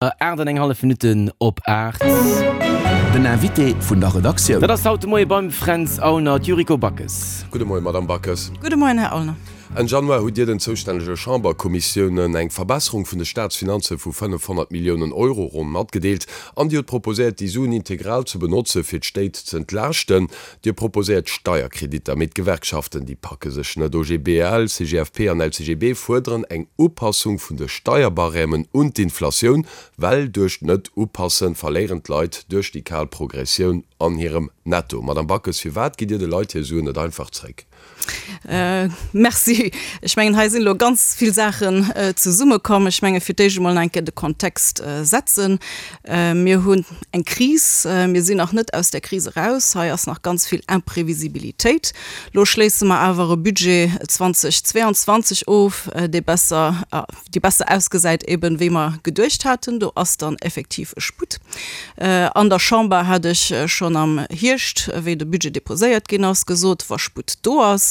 8 an eng hallef Minutten op 8. Den Invité vun der Redaktioun. Dat ass haut de Moie beim Fränz Aulner, d'Yuriko Backes. Gudde Moien, Madamm Backes. Gudde Moien, Här Aulner. Enn Januar hutt Dir den zoustännege Chamberkommissiounen eng Verbesserung vun de Staatsfinanze vu 500 Milliounen Euro ronn matgedeelt an Dir hutt proposéiert, déi Suen integral ze benotze fir d'Stéit z'entlaaschten. Dir proposéiert Steierkreditter, mee d'Gewerkschaften, déi packe sech net. OGBL, CGFP an LCGB fuerderen eng Upassung vun de Steierbarèmen un d'Inflatioun, well duerch d'Net-Upassen verléieren d'Leit duerch déi kal Progressioun an hirem Netto. Madame Backes, firwat gitt Dir de Leit hir Suen net einfach zréck? Merci. Ech mengen, hei sinn elo ganz vill Saachen zesummekomm. Ech menge fir d'éischt emol nach eng Kéier de Kontext setzen. Mir hunn eng Kris. Mir sinn nach net aus där Kris eraus. Hei ass nach ganz vill Imprevisibilitéit. Elo schléisse mer awer e Budget 2022 of, dee besser, déi besser ausgesäit eben, wéi mer geduecht haten. Do ass dann effektiv e Sputt. An der Chamber hat ech schonn am Hierscht, wéi de Budget déposéiert ginn ass, gesot, wa Sputt do ass,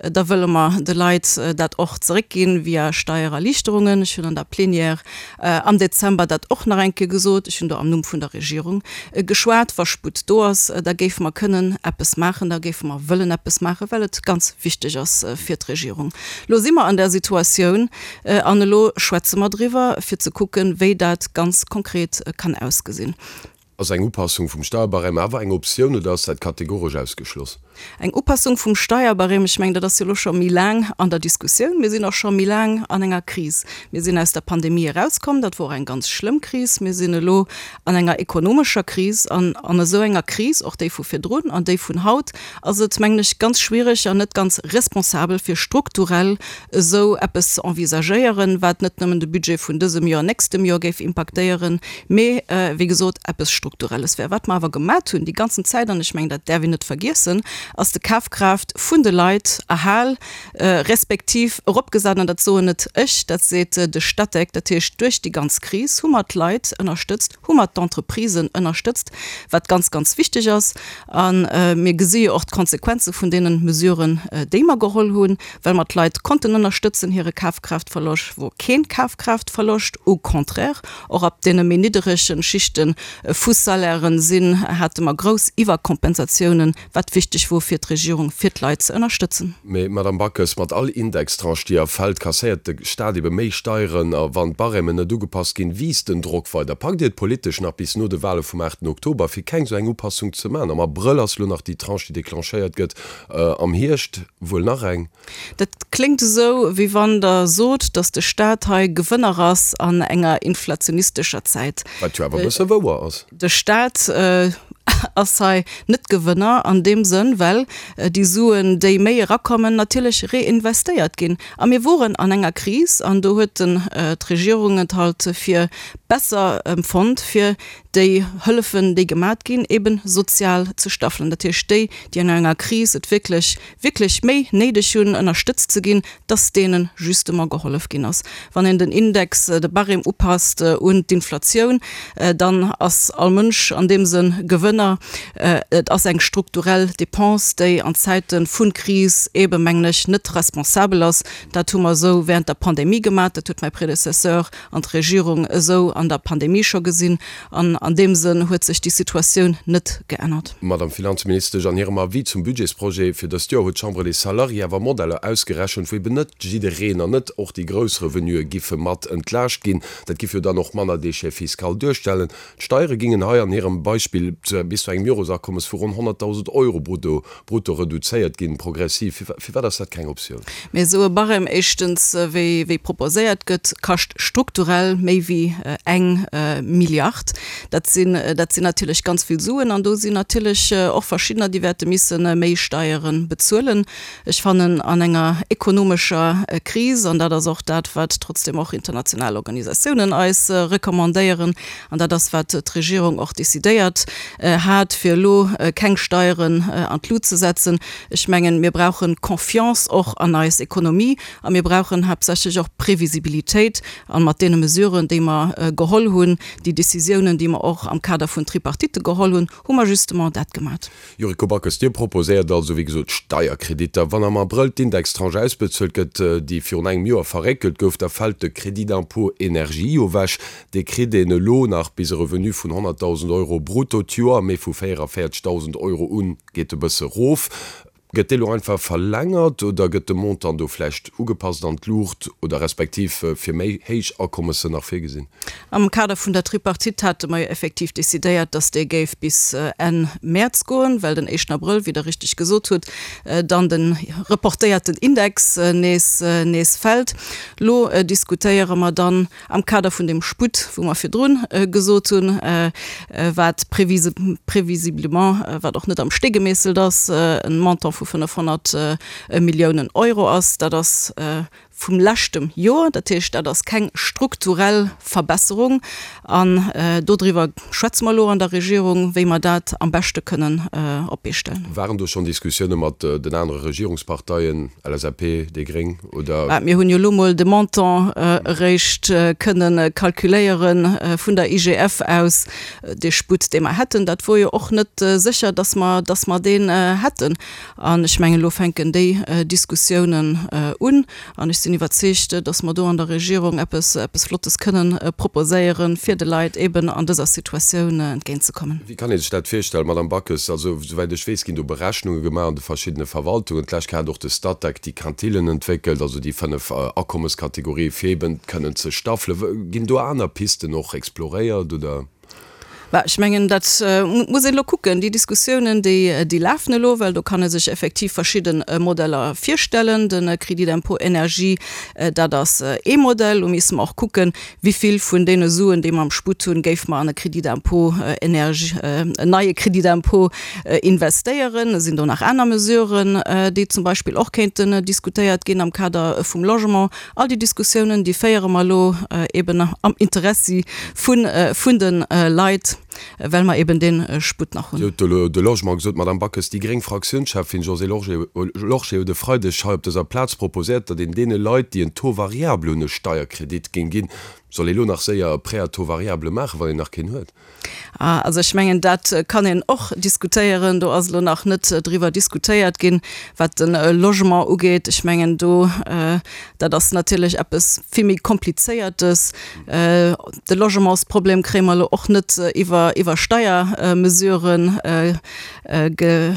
da wëlle mer de Leit dat och zeréckginn via Steiererliichterungen. Ech hunn an der Plénière am Dezember dat och nach eng Kéier gesot. Ech hunn do am Numm vun der Regierung geschwat. Wa Sputt do ass, da géife mer kënnen eppes maachen, da géife mer wëllen eppes maachen, well et ganz wichteg ass fir d'Regierung. Elo si mer an där Situatioun an elo schwätze mer driwwer, fir ze kucken, wéi dat ganz konkret kann ausgesinn. Ass eng Upassung vum Steierbarème awer eng Optioun oder ass dat kategoresch ausgeschloss? Eng Upassung vum Steierbarème, ech mengen, dat ass jo elo scho méi laang an der Diskussioun. Mir sinn och scho méi laang an enger Kris. Mir sinn aus der Pandemie erauskomm, dat wor och eng ganz schlëmm Kris. Mir sinn elo an enger ekonomescher Kris an an esou enger Kris, och déi vu virdrun an déi vun haut, ass et, mengen ech, ganz schwierig an net ganz responsabel, fir strukturell esou eppes ze envisagéieren, wat net nëmmen de Budget vun dësem Joer, nächstem Joer géif impaktéieren, mee, wéi gesot, eppes Strukturelles wär. Wat mer awer gemat hunn déi ganzen Zäit, an ech mengen, dat däerf een net vergiessen, ass de Kafkraaft vun de Leit erhal respektiv eropgesat, an dat soen net ech, dat seet de Statec, dat heescht, duerch déi ganz Kris hu mer d'Leit ënnerstëtzt, hu mer d'Entreprisen ënnerstëtzt, wat ganz, ganz wichteg ass. A mir gesi jo och d'Konsequenze vun deene Mesuren, déi mer geholl hunn, well mer d'Leit konnten ënnerstëtzen. Hire Kafkraaftverloscht wor keen Kafkraaftverloscht, au contraire, och ab deene méi nidderege Schichte vu Salairen sinn, hate mer grouss Iwwerkompensatiounen, wat wichteg wor fir d'Regierung, fir d'Leit ze ënnerstëtzen. Mee, Madamm Backes, mat all Indextranche, déi erfält, kasséiert de Staat ebe méi Steieren. A wann d'Barèmen net ugepasst ginn, wiisst den Drock weider. Packt Dir et politesch nach bis no de Wale vum 8 Oktober, fir keng esou eng Upassung ze maachen? Am Abrëll ass elo nach déi Tranche, déi declenchéiert gëtt, am Hierscht wuel nach eng. Dat kléngt esou, wéi wann Der sot, datt de Staat hei Gewënner ass an enger inflationistescher Zäit. Wat jo awer e bësse wouer ass. De Staat ass hei net Gewënner an deem Sënn, well déi Suen, déi méi erakommen, natierlech reinvestéiert ginn. A mir woren an enger Kris an do huet d'Regierung et halt fir besser empfonnt, fir déi Hëllefen, déi gemat ginn, eebe sozial ze staffelen. Dat heescht, déi, déi an enger Kris et wierklech wierklech méi néideg hunn, ënnerstëtzt ze ginn, dass deene justement gehollef ginn ass. Wann een den Index, de Barème upasst un d'Inflatioun, dann ass all Mënsch an deem Sënn Gewënner. Et ass eng strukturell Dépense, déi an Zäite vu Kris eebe, mengen ech, net responsabel ass. Dat hu mer esou während der Pandemie gemaach, dat huet mäi Prédécesseur an d'Regierung esou an der Pandemie scho gesinn. An an deem Sënn huet sech déi Situatioun net geännert. Madame Finanzministesch, an hirem Avis zum Budgetsprojet fir dëst Joer huet d'Chambre des Salariés awer Modeller ausgerechent, wou eben net jiddereen an net och déi grouss Revenuë giffe mat entlaascht ginn. Dat giff jo dann och manner Déchet fiscal duerstellen. D'Steiere gingen hei an hirem Beispill bis zu engem Joresakommes vu ronn 100.000 Euro brutto brutto reduzéiert ginn, progressiv. Firwat ass dat keng Optioun? Mee esou e Barème, éischtens, wéi wéi proposéiert gëtt, kascht strukturell méi wéi eng Milliard. Dat sinn, dat sinn natierlech ganz vill Suen an do sinn natierlech och verschiddener, déi wäerte misse méi Steiere bezuelen. Ech fannen, an enger ekonomescher Kris, an dat ass och dat, wat trotzdem och international Organisatiounen eis recommandéieren, An dat ass, wat d'Regierung och decidéiert hat, fir elo keng Steieren an d'Lut ze setzen. Ech mengen, mir brauche Confiance och an eis Ekonomie a mir brauchen haaptsächlech och Previsibilitéit. A mat deene Mesuren, déi mer geholl hunn, déi Décisiounen, déi mer. mer och am Kader vun Tripartite geholl hunn, hu mer justement dat gemat. Yuriko Backes, Dir proposéiert also, wéi gesot, Steierkreditter. Wann am Abrëll d'Indextranche ausbezuelt gëtt, déi virun engem Joer verréckelt gouf, da fält de Crédit d'impôt énergie jo ewech. Dee kritt een elo nach bis e Revenu vun 100.000 Euro brutto d'Joer, mee vu 44.000 Euro un geet e bësse rof. Gëtt dee lo einfach verlängert oder gëtt de Montant do vläicht ugepasst an d'Luucht oder respektiv fir méi héich Akommessen nach virgesinn? Am Kader vun der Tripartite hate mer jo effektiv decidéiert, dass dee géif bis Enn Mäerz goen, well den éischten Abrëll, wéi Der richtig gesot hutt, dann de reportéierten Index nees nees fält. Lo diskutéiere mer dann Am Kader vun deem Sputt, wou mer virdrun gesot hunn, wat prévisiblement, wat och net am Stee gemeesselt ass, e Montant vu 500 Milliounen Euro ass, dat ass vum leschtem Joer, dat heescht, dat ass keng strukturell Verbesserung. An dodriwwer schwätze mer elo an der Regierung, wéi mer dat am beschte kënnen op d'Bee stellen. Waren do schonn Diskussioune mat den anere Regierungsparteien, LSAP, déi Gréng, oder? Mä mir hunn jo elo mol de Montant eréischt kënne kalkuléiere vun der IGF aus, dee Sputt, dee mer hätten. Dat wor jo och net sécher, dass mer, dass mer deen hätten. An ech mengen, elo fänken déi Diskussiounen un. An ech sinn iwwerzeegt, dass mer do an der Regierung eppes, eppes Flottes kënnen proposéieren, fir de Leit eeben an dëser Situatioun entgéintzekommen. Wéi kann ee sech dat virstellen, Madame Backes? Also, souwäit ech weess, ginn do Berechnunge gemaach an de verschiddene Verwaltungen. D'lescht Kéier hat och de Statec déi Quintillen entwéckelt, also déi 5 Akommeskategorië fir eeben kënnen ze staffelen. Ginn do aner Pisten och exploréiert, oder? Bah, ech mengen, dat muss een elo kucken. Déi Diskussiounen, déi, déi lafen elo, well do kann ee sech effektiv verschidde Modeller virstellen. De Crédit d'impôt énergie, dat ass ee Modell. Lo misste mer och kucken, wivill vun deene Suen, déi mer am Sputt hunn, géife mer an e Crédit d'impôt énergie, en neie Crédit d'impôt investéieren. Et sinn do nach aner Mesuren, déi zum Beispill och kéinten diskutéiert ginn am Kader vum Logement. All déi Diskussiounen, déi féiere mer elo eben am Interessi vun, vun de Leit, well mer eben dee Sputt nach hunn. Dir hutt elo de Logement gesot, Madame Backes. Déi gréng Fraktiounscheffin Josée Lorsché huet e Freideg hei op dëser Plaz proposéiert, datt een deene Leit, déi en Taux variable hunn, e Steierkredit géing ginn. Soll ee lo nach séier e Prêt à taux variable maachen, wann een nach keen huet? Ah, also ech mengen, dat kann een och diskutéieren. Do ass elo nach net driwwer diskutéiert ginn, wat de Logement ugeet. Ech mengen do, dat ass natierlech eppes vill méi Komplizéiertes. De Logementsproblem kréie mer elo och net iwwer, iwwer Steiermesuren ge,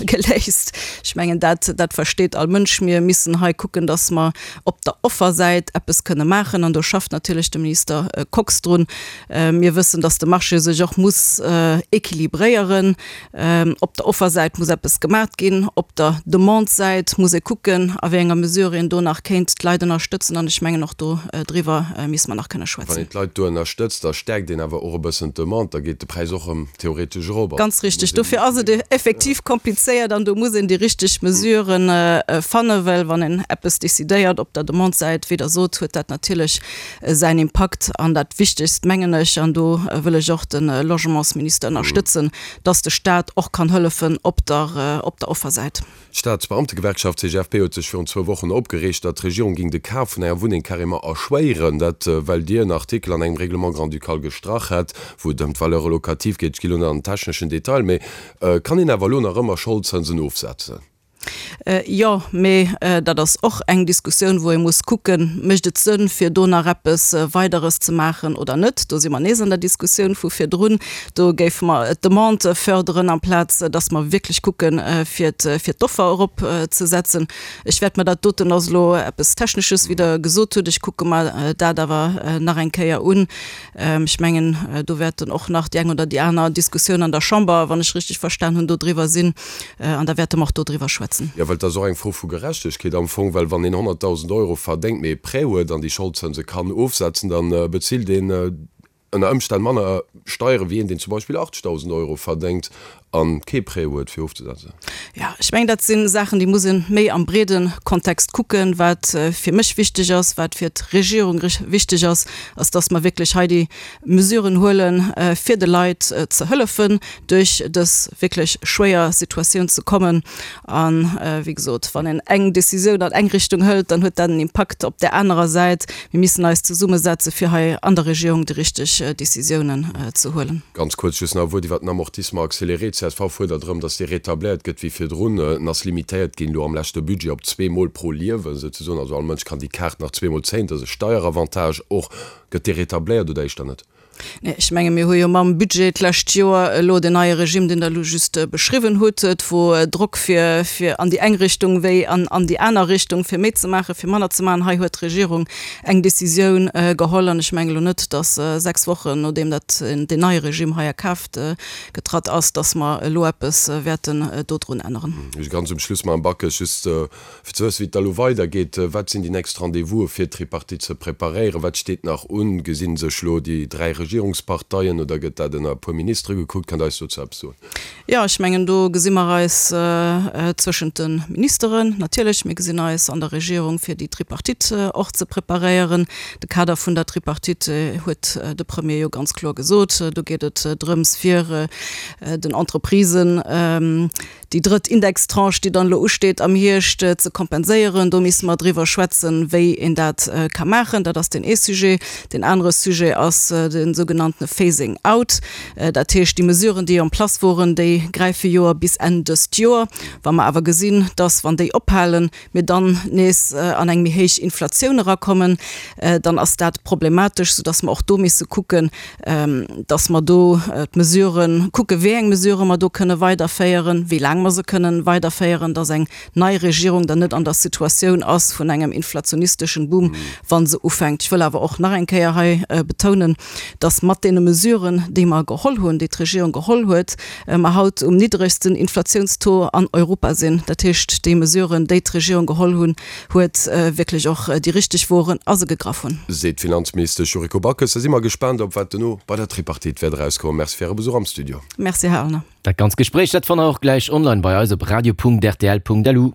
geléist. Ech mengen, dat, dat versteet all Mënsch. Mir missen hei kucken, dass mer op der Offersäit eppes kënne maachen, an do schafft natierlech de Minister Kox drun. Mir wëssen, dass de Marché sech och muss équilibréieren. Op der Offersäit muss eppes gemaat ginn, op der Demande-Säit muss ee kucken, a wéi enger Mesure een do nach kéint d'Leit ënnerstëtzen. An ech mengen, och do driwwer misste mer nach kënne schwätzen. Wann een d'Leit do ënnerstëtzt, da stäerkt een awer och e bëssen d'Demande, da geet de Präis och erëm theoretesch erop. Ganz richtig. Dofir ass et effektiv komplizéiert an do muss een déi richteg Mesuren fannen, well wann een eppes decidéiert op der Demande-Säit, wéi Der sot, huet dat natierlech säin Impakt. An dat Wichtegst, mengen ech, an do wëll ech och de Logementsminister ënnerstëtzen, dass de Stat och kann hëllefen op der, op der Offersäit. D'Staatsbeamtegewerkschaft CGFP huet sech virun zwou Wochen opgereegt, datt d'Regierung géing de Kaf vun enger Wunneng carrément erschwéieren. Dat well Dir en Artikel an engem Règlement grand-ducal gestrach hätt, wou et ëm d'Valeur locative geet. Ech gi lo net an den techneschen Detail, mee kann een awer elo nach ëmmer Scholdzënsen ofsetzen? Jo, mee dat ass och eng Diskussioun, wou ee muss kucken, Mécht et Sënn, fir do nach eppes Weideres ze maachen oder net? Do si mer nees an der Diskussioun vu virdrun. Do géife mer d'Demande förderen, amplaz datt mer wierklech kucken, fir d'Offer eropzesetzen. Ech wäert mer dat doten, ass elo eppes Technesches, wéi Der gesot hutt, ech kucke mer dat awer nach eng Kéier un. Ech mengen, do wäerten och nach déi eng oder déi aner Diskussioun an der Chamber, wann ech richtig verstan hunn, do driwwer sinn. An da wäerte mer och do driwwer schwätzen. Jo, well et ass och eng Fro vu Gerechtegkeet am Fong, well wann een 100.000 Euro verdéngt, mee e Prêt huet an déi Scholdzënse kann ofsetzen, da bezilt een ënner Ëmstänn manner Steiere wéi een, deen zum Beispill 80.000 Euro verdéngt. A kee Prêt huet fir ofzesetzen. Jo, ech mengen, dat si Saachen, déi muss ee méi am breede Kontext kucken. Wat fir mech wichteg ass, wat fir d'Regierung wichteg ass, ass, dass mer wierklech hei déi Mesuren huelen, fir de Leit ze hëllefen, duerch dës wierklech schwéier Situatioun ze kommen. A wéi gesot, wann een eng Décisioun an eng Richtung hëlt, dann huet dat en Impakt op där anerer Säit. Mir missen eis zesummesetze fir hei an der Regierung déi richteg Décisiounen ze huelen. Ganz kuerz just nach e Wuert iwwert den Amortissement accéléré. D'CSV fuerdert erëm, datt dee rétabléiert gëtt wéi virdrun. En ass limitéiert ginn elo am leschte Budget op zweemol pro Liewen souzesoen. Also all Mënsch kann déi Kaart nach zweemol zéien. Dat ass e Steieravantage och. Gëtt dee rétabléiert oder éischter net? Nee, ech menge mir hu jo mam Budget d'lescht Joer elo deen neie Regime, deen Der elo just beschriwwen hutt. Et wor Drock fir, fir an déi eng Richtung wéi an, an déi aner Richtung, fir méi ze maachen, fir manner ze maachen. Hei huet d'Regierung eng Décisioun geholl an ech menge elo net, datt sechs Wochen nodeem dat, deen neie Regime hei a Kraaft getratt ass, datt mer elo eppes wäerten dodrun änneren. Ganz um Schluss, Madame Backes, just Fir ze wëssen, wéi et da lo weidergeet, wat sinn déi nächst Rendez-vouse fir d'Tripartite ze preparéieren? Wat steet nach un? Gesi sech lo déi 3 Regierungsparteien oder gëtt dat ënner e puer Ministere gekuckt? Kënnt Der eis dozou eppes soen? Jo, ech mengen, do gesi mer eis zwëschent de Ministeren natierlech. Mir gesinn eis an der Regierung, fir déi Tripartite och ze preparéieren. De Kader vun der Tripartite huet de Premier jo ganz kloer gesot. Do geet et drëms, fir den Entreprisen, Déi drëtt Indextranche, déi dann elo usteet am Hierscht, ze kompenséieren, do misse mer driwwer schwätzen, wéi een dat ka maachen. Dat ass deen ee Sujet. Deen anere Sujet ass de sougenanntene Phasing out. Dat heescht, déi Mesuren, déi en place woren, déi gräife jo bis Enn dëst Joer. Wa mer awer gesinn, dass, wann déi ophalen, mir dann nees an eng méi héich Inflatioun erakommen, dann ass dat problematesch, soudass mer och do misse kucken, dass mer do d'Mesuren kucken, wéi eng Mesurë mer do kënne weiderféieren, wéi laang mer se kënnen weiderféieren, dass eng nei Regierung dann net an der Situatioun ass vun engem inflationisteschen Boom, wa se ufänkt. Ech wëll awer och nach eng Kéier hei betounen, dass mat deene Mesuren, déi mer geholl hunn, déi d'Regierung geholl huet, mer haut um niddregsten Inflatiounstaux an Europa sinn. Dat heescht, déi Mesuren, déi d'Regierung geholl hunn, huet, wierklech och déi richteg woren a se gegraff hunn. Seet d'Finanzministesch Yuriko Backes. Da si mer gespaant, op wat dono bei der Tripartite wäert erauskommen. Merci fir Äre Besuch am Studio. Merci, Här Aulner. Dat ganz Gespréich, dat fannt der och gläich online bei eis op radio.rtl.lu.